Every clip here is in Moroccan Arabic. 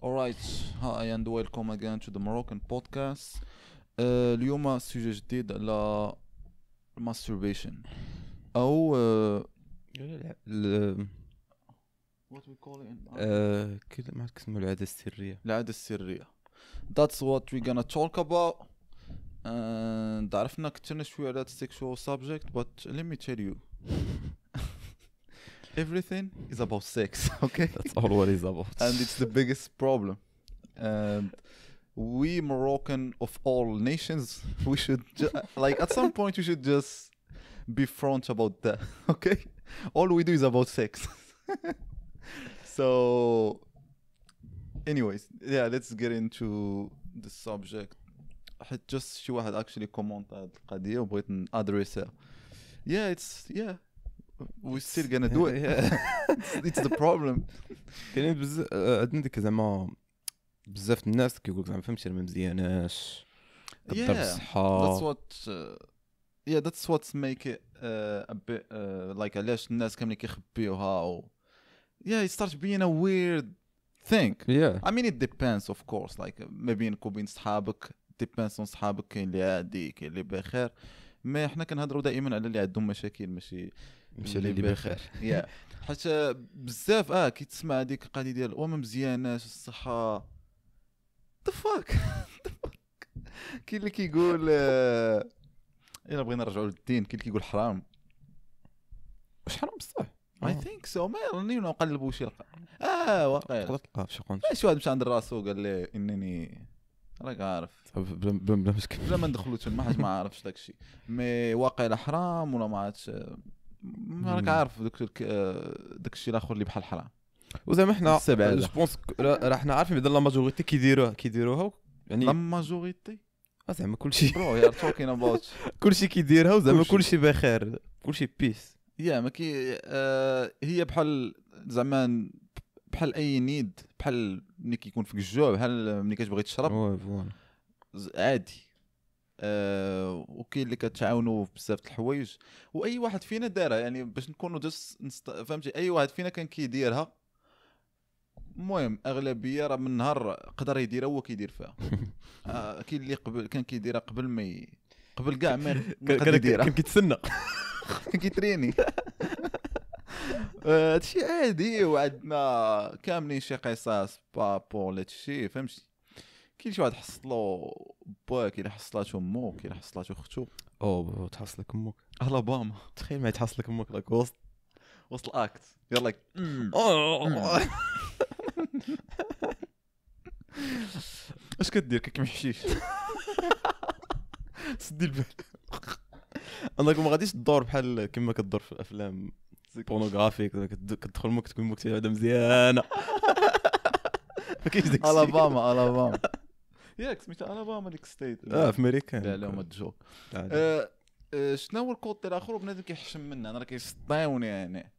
Alright, hi and welcome again to the Moroccan podcast. اليوم sujet جديد على masturbation او what we call it كذا ما عرفت كيسموا العادة السريه. العادة السرية. That's what we're gonna talk about. And عرفنا كثرنا شوية على sexual subject, but let me tell you, everything is about sex, okay? That's all what is about. And it's the biggest problem. And we Moroccan of all nations, we should like at some point we should just be front about that, okay? All we do is about sex. So, anyways, yeah, let's get into the subject. حيت just شي واحد actually comment هاد القضية وبغيت ن address ها. Yeah, it's yeah. We're still gonna do it. It's the problem. كاينين بزاف عندنا ديك زعما بزاف الناس كيقول لك زعما فهمتي ما مزياناش كضر الصحة. That's what yeah, that's what's make it a bit like علاش الناس كاملين كيخبيوها و yeah, it starts being a weird thing. I mean, it depends, of course, like ما بينك وبين صحابك, depends on صحابك، كاين اللي عادي، كاين اللي بخير، mais حنا كنهضروا دائما على اللي عندهم مشاكل، ماشي ماشي اللي بخير. Yeah, حيت بزاف كيتسمع هذيك القضية ديال وما مزياناش الصحه، the fuck. كاين اللي كيقول الا بغينا نرجعوا للدين، كاين اللي كيقول حرام. واش حرام بصح؟ I think so، ما راني نقلبوا شي واقع تقدر تلقى في شي قنت. شي واحد مشى عند راسو قال لي انني راك عارف بلا مشكل، بلا ما ندخلوا تما حيت ما عارفش داكشي، mais واقع حرام ولا ما عرفتش، ما راك عارف داك الشيء الاخر اللي بحال حرام. وزعما حنا je pense راه حنا عارفين بعدا la majorité كيديروها يعني la majorité زعما كلشي bro, you're talking about كلشي كيديرها وزعما كلشي بخير، كلشي peace. yeah, ما كي هي بحال زعما بحال اي need، بحال ملي كيكون فيك الجوع، بحال ملي كتبغي تشرب، عادي. وكاين اللي كتعاونوا بزاف د الحوايج، واي واحد فينا دارها، يعني باش نكونوا just فهمتي، اي واحد فينا كان كيديرها. المهم اغلبية راه من نهار قدر يديرها هو كيدير فيها. كاين اللي قبل كان كيديرها قبل ما قبل كاع ما يقدر يديرها، كان كيتسنى، كان كيتريني. هادشي عادي، وعندنا كاملين شي قصص par rapport لهادشي، فهمتي. كاين شي واحد حصلو با، كاين اللي حصلاتو مو، كاين اللي حصلاتو اختو. او تحصلك امك. الاباما. تخيل ما تحصلك امك like وسط وسط ال act, you're like oh. اش كدير؟ كيكمحشيش، سدي البال. انك ما غاديش تدور بحال كما كدور في الافلام pornographiques، كتدخل مك تكون مك هذا مزيانه، ما كاينش داك. الاباما، الاباما، ياك سميتها الاباما ديك state؟ اه، في امريكا. لا لا، ما joke. شنو هو ال côté الاخر؟ بنادم كيحشم منه، انا راه كيسطيوني، يعني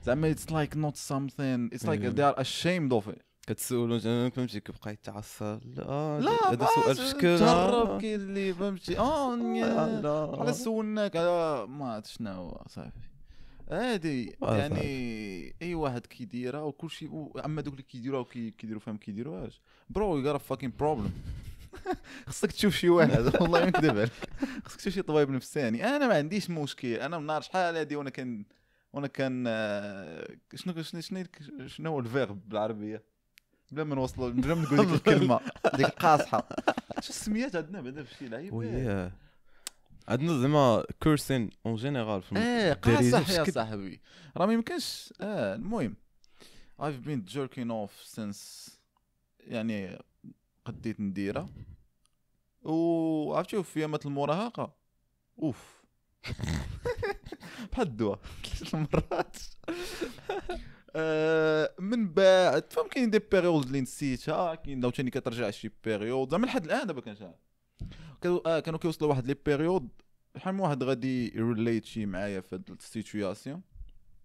زعما it's like not something, it's like they are ashamed of it. كتسولو فهمتي، كيبقى يتعصب. لا لا، هذا سؤال في شكل. تهرب. كاين اللي فهمتي اه على سولناك على ما عرفت شنو هو، صافي هادي. يعني اي واحد كيديرها وكل شيء. اما دوك اللي كيديروها وكيديروا فيهم كيديروهاش، bro, you got a fucking problem. خصك تشوف شي واحد، والله ما نكذب عليك، خصك تشوف شي طبيب نفساني. انا ما عنديش مشكل، انا من نهار شحال هادي وانا كان شنو شنو شنو شنو هو ال verbe بالعربيه؟ بلا ما نوصلوا، بلا ما نقول ديك الكلمة ديك القاصحه، شو السميات عندنا بعدا في شي لعيب؟ وياه، عندنا زعما cursing en général. ايه، قاصح يا صاحبي، راه ما يمكنش. المهم I've been jerking off since يعني قديت نديرها، وعرفتي في ايامات المراهقة اوف بحال الدواء ثلاث المرات. من بعد فهم كاين des périodes اللي نسيتها، كاين عاوتاني كترجع شي période. زعما لحد الان دابا كنشعل كانوا كيوصلوا واحد les périodes، شحال من واحد غادي relate شي معايا في هاد ال situation،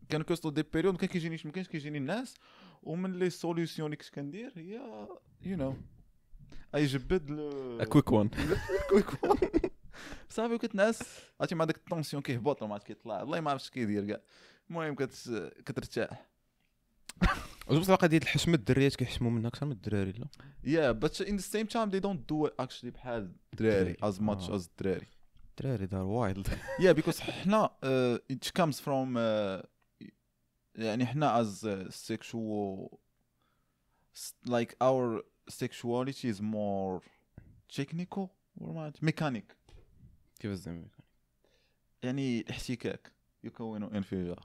كانوا كيوصلوا des périodes ما كان كيجينيش، ما كانش كيجيني الناس، ومن les solutions اللي كنت كندير هي اي جبد quick one. quick one، صافي وكتنعس، عرفتي مع داك ال tension كيهبط وما عرفت كيطلع، والله ما عرفتش كيدير كاع. المهم كترتاح. بصح قضية الحشمة الدريات كيحشموا منها اكثر من الدراري لا؟ Yeah, but in the same time they don't do it actually بحال الدراري as much as الدراري. الدراري they're wild. Yeah, because حنا it comes from يعني حنا as sexual like our sexuality is more technical or what mechanic. كيف زعما؟ يعني الاحتكاك يكون انفجار.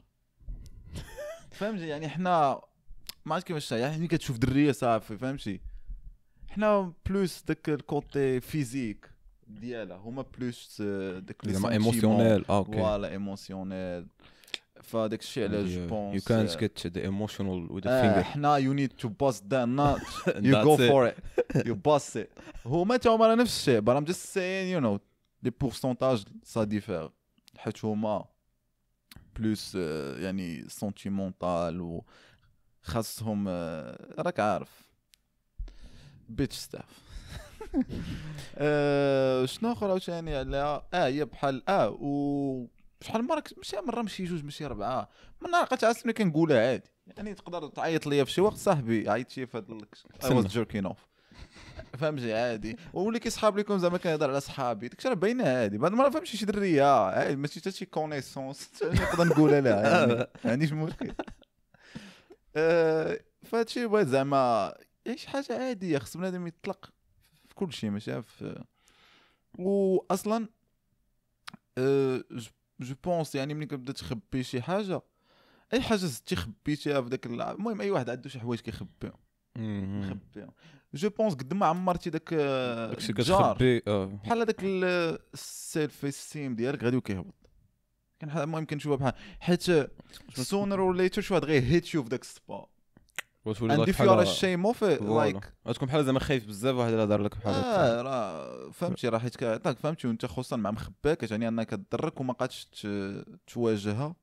فهمتي؟ يعني حنا ما عرفت كيفاش، يعني ملي كتشوف دريه صافي فهمتي، حنا plus داك ال côté physique ديالها، هما plus داك زعما émotionnel. okay voilà émotionnel. فداك الشيء علاش je pense يو كانت جيت ذا ايموشنال وذ ذا فينجر. حنا you need to bust that nut, you go for it, you bust it. هما تا هما نفس الشيء, but I'm just saying you know les pourcentages ça diffère، حيت هما plus يعني sentimental و خاصهم راك عارف bitch stuff. شنو اخر عاوتاني على هي بحال و شحال مرة ماشي مرة ماشي جوج ماشي اربعة من نهار عرفت ملي كنقولها عادي، يعني تقدر تعيط ليا في شي وقت صاحبي عيط شي في هاد I was jerking off فهمتي عادي. واللي كيصحاب لكم زعما كنهضر على صحابي داكشي راه باينة عادي، بعد المرة فهمتي شي دريه عادي ماشي حتى شي connaissance نقدر نقولها لها يعني ما عنديش مشكل. فهادشي بغيت زعما شي حاجة عادية، خص بنادم يطلق في كل شيء ماشي في. واصلا je pense يعني ملي كتبدا تخبي شي حاجة، اي حاجة زدتي خبيتيها في داك المهم اي واحد عنده شي حوايج كيخبيهم خبيهم. je pense قد ما عمرتي داك داكشي كتخبي بحال هذاك ال self-esteem ديالك غادي وكيهبط. كان المهم كنشوفها بحال حيت sooner or later شي واحد غير hit you في داك spot وتولي and if you are ashamed of it like غتكون بحال زعما خايف بزاف واحد الا دار لك بحال هكا راه فهمتي راه حيت كيعطاك فهمتي، وانت خصوصا مع مخباك يعني انك تضرك وما قادش تواجهها.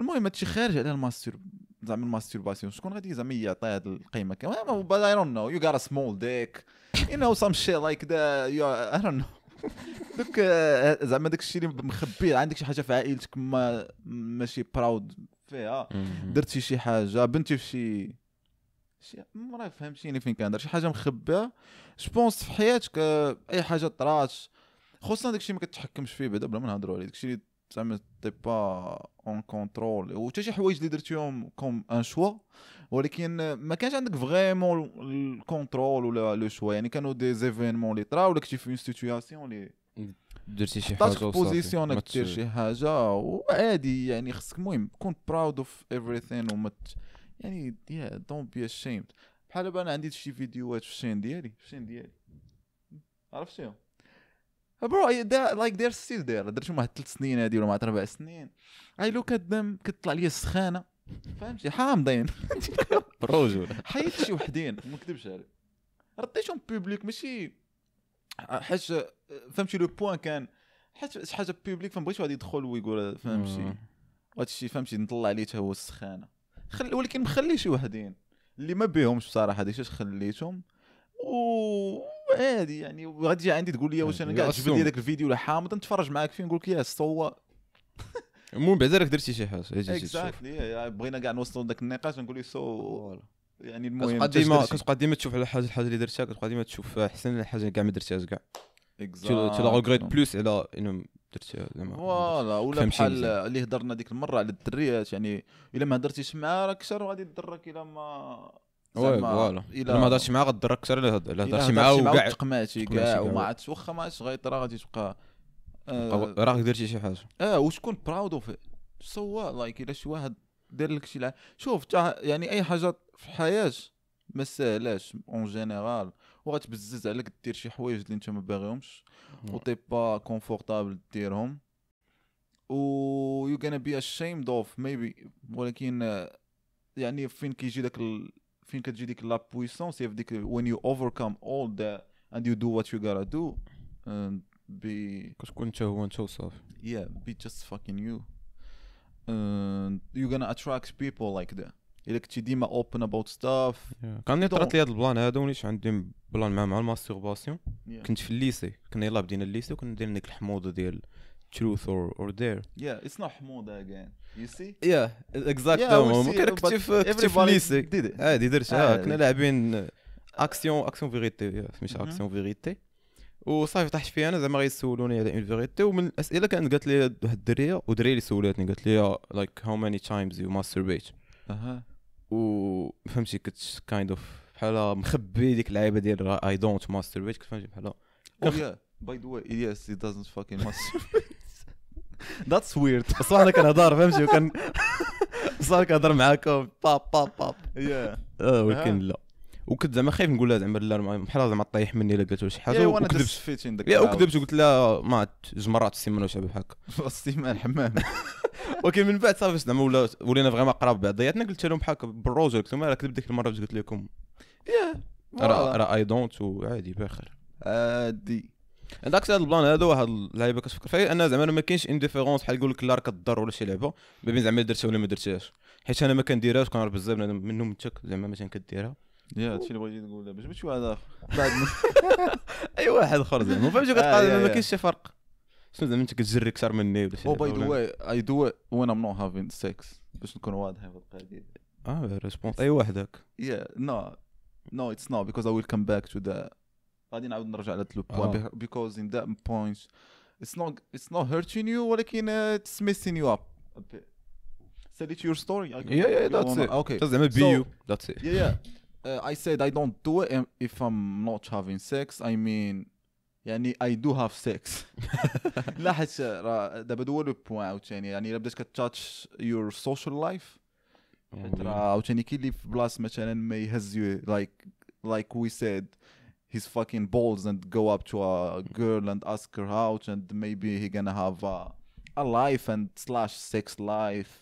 المهم هادشي خارج على ال mastur زعما ال masturbation شكون غادي زعما يعطي هاد القيمة كامل؟ But I don't know, you got a small dick, you know some shit like that, you are, I don't know. دوك زعما داك الشيء اللي مخبي عندك شي حاجة في عائلتك ما ماشي proud فيها، درتي شي حاجة بنتي في شي ما فهمتيني فين كندير شي حاجة مخبيه. je pense في حياتك اي حاجة طرات خصوصا داك الشيء ما كتحكمش فيه بعدا بلا ما نهضروا عليه، داك الشيء اللي زعما t'es pas en contrôle وحتى شي حوايج اللي درتيهم comme un choix ولكن ما كانش عندك vraiment ال contrôle ولا le choix، يعني كانوا des événements اللي طراو ولا كنتي في une situation اللي درتي شي حاجة وصافي position انك دير شي حاجة وعادي، يعني خصك المهم كون proud of everything وما يعني yeah don't be ashamed. بحال دابا انا عندي شي فيديوهات في ال chaîne ديالي عرفتيهم bro like they're still there، درتهم واحد 3 سنين هادي ولا مع 4 سنين. I look at them كتطلع لي السخانه فهمتي حامضين بروجول حيت شي وحدين ما نكذبش عليك رديتهم public ماشي حيت فهمتي le point كان حيت شي حاجة publique فما بغيتش واحد يدخل ويقول فهمتي وهادشي فهمتي نطلع ليه حتى هو السخانه ولكن مخلي شي وحدين اللي ما بيهمش بصراحة ديك اش خليتهم وعادي. يعني غادي تجي عندي تقول لي واش انا كاع جبد لي داك الفيديو ولا حامض نتفرج معاك فيه نقول لك يا so المهم بعدا راك درتي شي حاجة exactly. بغينا كاع نوصلوا لذاك النقاش نقول لي so يعني المهم كتبقى ديما تشوف على حاجة الحاجة اللي درتها كتبقى ديما تشوف احسن الحاجة كاع ما درتهاش كاع tu la regrettes plus على انه درتها زعما voilà. ولا بحال اللي هضرنا ديك المرة على الدريات، يعني الا ما هضرتيش معاه راك اكثر غادي تضرك الا ما voilà الا ما هضرتش معاه غتضرك اكثر الا هضرتي معاه وكاع تقمعتي كاع وما عادش واخا ما عادش غيطرا غادي تبقى راك درتي شي حاجة وتكون proud of so like الا شي واحد دار لك شي شوف يعني اي حاجة في الحياة ما ساهلاش en général وغتبزز عليك دير شي حوايج اللي انت ما باغيهمش و t'es pas confortable ديرهم و you gonna be ashamed of maybe، ولكن يعني فين كيجي داك فين كتجي ديك la puissance هي في ديك when you overcome all that and you do what you gotta do and be كتكون انت هو انت وصافي yeah be just fucking you and you're gonna attract people like that الا كنتي ديما open about stuff. كان طرات لي هذا ال plan هذا وليت عندي plan مع ال masturbation. كنت في ال lycée، كنا يلاه بدينا ال lycée وكنا دايرين ديك الحموضة ديال truth or dare. Yeah, it's not حموضة again. You see? Yeah, exactly. ممكن كنتي في ال lycée عادي درتها، كنا لاعبين action vérité، سميتها action vérité، وصافي طاحت فيها انا زعما غيسولوني على une vérité. ومن الاسئلة كانت قالت لي واحد الدريه ودريه اللي سولاتني قالت لي like how many times you masturbate. اها، و فهمتي كنت kind of بحال مخبي ديك اللعيبة ديال I don't masturbate، كنت فهمتي بحال oh yeah by the way yes he doesn't fucking masturbate. That's weird. بصح انا كنهضر فهمتي، وكان بصح كنهضر معاكم با با با yeah، ولكن لا، وكنت زعما خايف نقول لها زعما لا بحال زعما طيح مني الا قالت شي حاجة، وكذبت وكذبت وقلت لها ما جوج مرات في السيمانة وشي بحال هكا السيمانة الحمام. ولكن من بعد صافي زعما ولينا vraiment قراب بعضياتنا، قلت لهم بحال هكا بالروج، قلت لهم راه كذبت ديك المرة باش قلت لكم راه I don't، وعادي بخير عادي. عندك هذا ال plan هذا واحد اللعيبة كتفكر فيها انا زعما ما كاينش une différence بحال يقول لك لا راه كضر ولا شي لعبه ما بين زعما درتها ولا ما درتهاش، حيت انا ما كنديرهاش كنعرف بزاف منهم انت زعما مثلا كديرها. yeah هادشي اللي بغيتي تقول باش ماشي واحد اخر بعد اي واحد اخر زعما فهمتي، كتلقى ما كاينش شي فرق. شنو زعما انت كتجري اكثر مني ولا شي؟ oh by the way I do it when I'm not having sex، باش نكون واضح في القضية. réponse اي واحد هاك. yeah no no it's not because I will come back to the غادي نعاود نرجع لهاد le point because in that point it's not hurting you ولكن it's messing you up a bit. Said it your story. Yeah that's it. Okay زعما be you that's it. Yeah I said I don't do it if I'm not having sex. I mean يعني I do have sex. لا حيت راه دابا هو le point عاوتاني، يعني الا بدات كت touch your social life حيت راه عاوتاني كاين اللي في بلاصة مثلا ما يهز you like we said his fucking balls and go up to a girl and ask her out and maybe he gonna have a life and slash sex life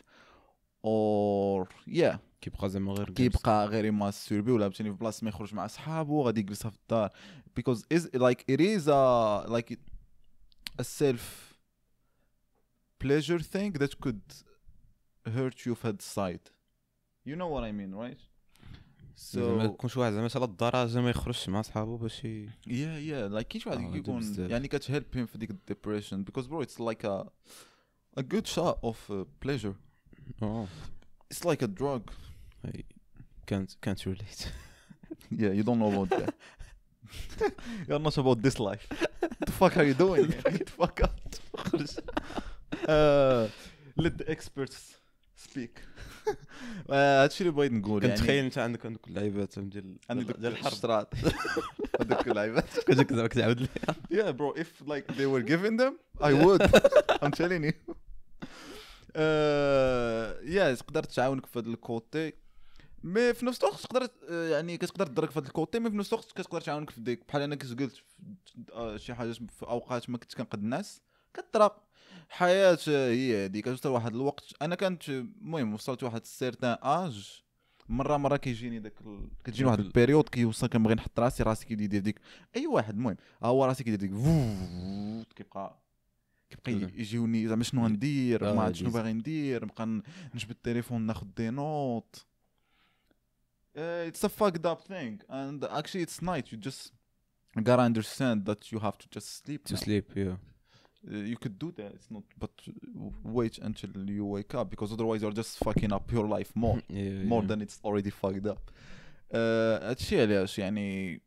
or yeah كيبقى زعما غير كيبقى غير يماستربي ولا فهمتيني في بلاصة ما يخرج مع صحابو غادي يجلسها في الدار because is like it is a like a self pleasure thing that could hurt you في هاد ال side. You know what I mean, right? So ما يكونش واحد زعما على الدرجة ما يخرجش مع صحابو باش yeah like كاين شي واحد كيكون يعني كت help him في ديك ال depression because bro it's like a good shot of pleasure. It's like a drug. I can't relate. Yeah, you don't know about that. You're not about this life. What the fuck are you doing? Get the fuck out. Let the experts speak. هادشي اللي بغيت نقول. يعني كنتخيل انت عندك اللعيبات ديال الحرب الشراط هذوك اللعيبات كنت زعما كتعاود لي. Yeah bro, if like they were giving them I would. I'm telling you. Yeah تقدر تعاونك في هذا ال côté mais في نفس الوقت تقدر يعني كتقدر تضرك في هذا ال côté mais في نفس الوقت كتقدر تعاونك في ديك. بحال انا كنت قلت شي حاجة في اوقات ما كنت كنقد الناس كطرا حياة هي هذيك. كتوصل واحد الوقت انا كانت المهم وصلت واحد certain âge مرة كيجيني داك كتجيني واحد ال période كيوصل كنبغي نحط راسي كيدير ديك اي واحد المهم هو راسي كيدير ديك كيبقى يجيوني زعما شنو غندير ما عرفت شنو باغي ندير نبقى نجبد التليفون ناخذ des notes. It's a fucked up thing and actually it's night. You just gotta understand that you have to just sleep to sleep. Yeah, you could do that. It's not, but wait until you wake up because otherwise you're just fucking up your life more. Yeah, more than it's already fucked up. هادشي علاش يعني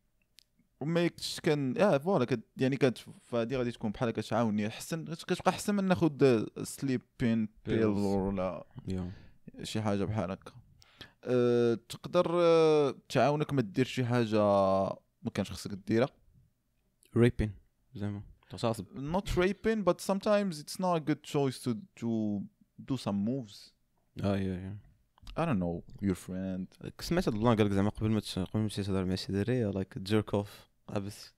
ما كان voilà يعني فهادي غادي تكون بحال كتعاوني احسن، كتبقى احسن من ناخذ sleeping pill ولا شي حاجة بحال هكا. تقدر تعاونك ما دير شي حاجة ما كانش خصك ديرها. raping زعما تغتصب. Not raping but sometimes it's not a good choice to do some moves. Yeah I don't know your friend. سمعت هاد ال plan قال لك زعما قبل ما تمشي تهضر مع شي دريه like jerk off عبس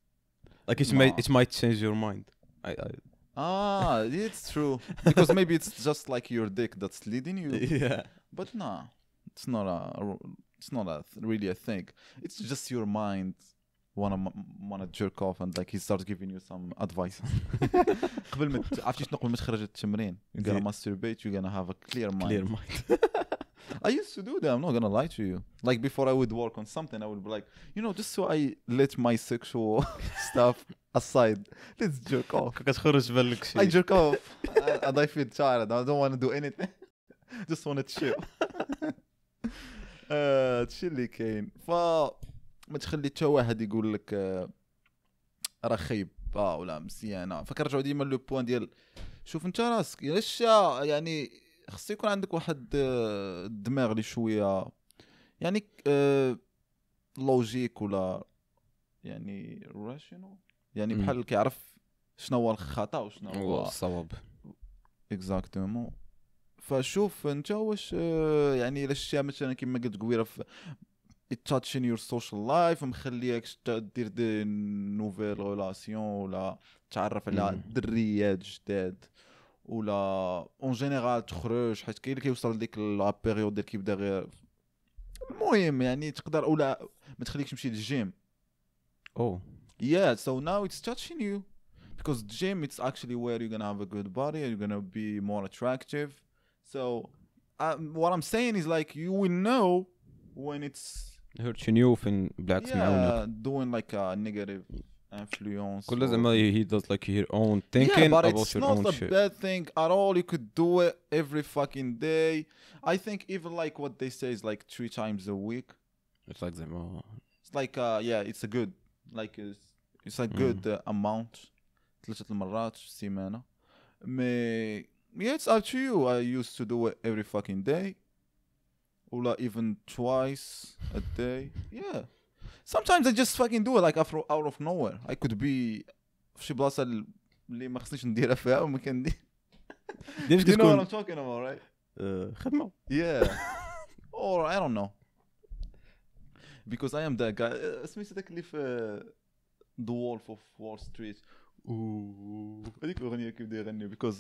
like it might change your mind. I it's true because maybe it's just like your dick that's leading you. Yeah but no, it's not a really a thing. It's just your mind wanna jerk off and like he starts giving you some advice. قبل ما عرفتي شنو قبل ما تخرج التمرين you gonna masturbate, you gonna have a clear mind. Clear mind. I used to do that. I'm not gonna lie to you. Like before I would work on something, I would be like, just so I let my sexual stuff aside, let's jerk off. كتخرج بالك شي I jerk off and I feel tired. I don't want to do anything. Just want to chill. هادشي اللي كاين. فما تخلي حتى واحد يقول لك راه خايب ولا مزيانه. فكنرجعوا ديما le point ديال شوف انت راسك علاش، يعني خص يكون عندك واحد الدماغ اللي شوية يعني logique ولا يعني rational، يعني بحال كيعرف شنو هو الخطا وشنو هو الصواب. exactement. فشوف انت واش يعني الا شتيها مثلا كما قلت قبيلة في touching your social life ومخليك دير des nouvelles relations ولا تعرف على دريات جداد ولا en général تخرج، حيت كاين اللي كيوصل لديك la période ديال كيبدا غير المهم يعني تقدر ولا ما تخليكش تمشي للجيم. Yeah, so now it's touching you because gym it's actually where you're gonna have a good body and you're gonna be more attractive. So what I'm saying is like you will know when it's hurting you فين بالعكس معاونك. doing like a negative influence. كل زعما he does like her own thinking yeah, but about it's your not own a shit. bad thing at all. You could do it every fucking day. I think even like what they say is like 3 times a week. It's like زعما It's like yeah, it's a good like it's a good amount. 3 المرات في السيمانة. Mais yeah, it's up to you. I used to do it every fucking day. ولا even twice a day. Yeah. Sometimes I just fucking do it like out of nowhere. I could be في شي بلاصة اللي ما خصنيش نديرها فيها وما كندير. ديما You know what كتكون I'm talking about, right? خدمة. Yeah. Or I don't know. Because I am that guy. سميتو داك اللي في The Wolf of Wall Street. هذيك الأغنية كيبدا يغني because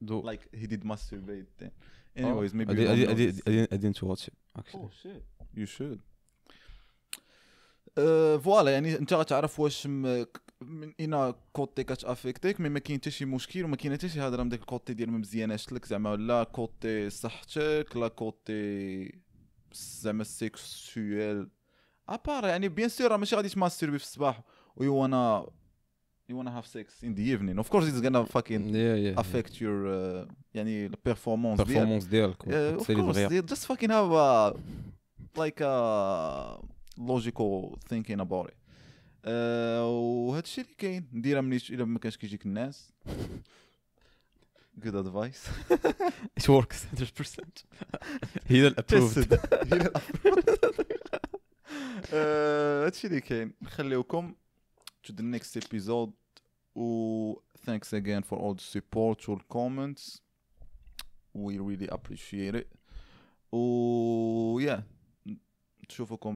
like he did masturbate then. Anyways, maybe you don't know this. I didn't watch it actually. Oh shit. You should. voilà يعني انت غتعرف واش من اين côté كتافيكتيك، mais ما كاين حتى شي مشكل وما كاين حتى شي هضره من داك ال côté ديال ما مزياناش لك زعما، لا côté صحتك لا côté زعما sexuel à part. يعني bien sûr راه ماشي غادي تماستربي في الصباح و you wanna have sex in the evening. Of course it's gonna fucking affect your يعني the performance ديالك. performance ديالك. Of course, just fucking have a like a logical thinking about it. وهذا الشيء اللي كاين نديرها ملي الا ما كانش كيجيك الناس. Good advice. It works 100%. He approved. هذا الشيء اللي كاين. نخليوكم to the next episode. و thanks again for all the support or comments. We really appreciate it. و yeah, نشوفكم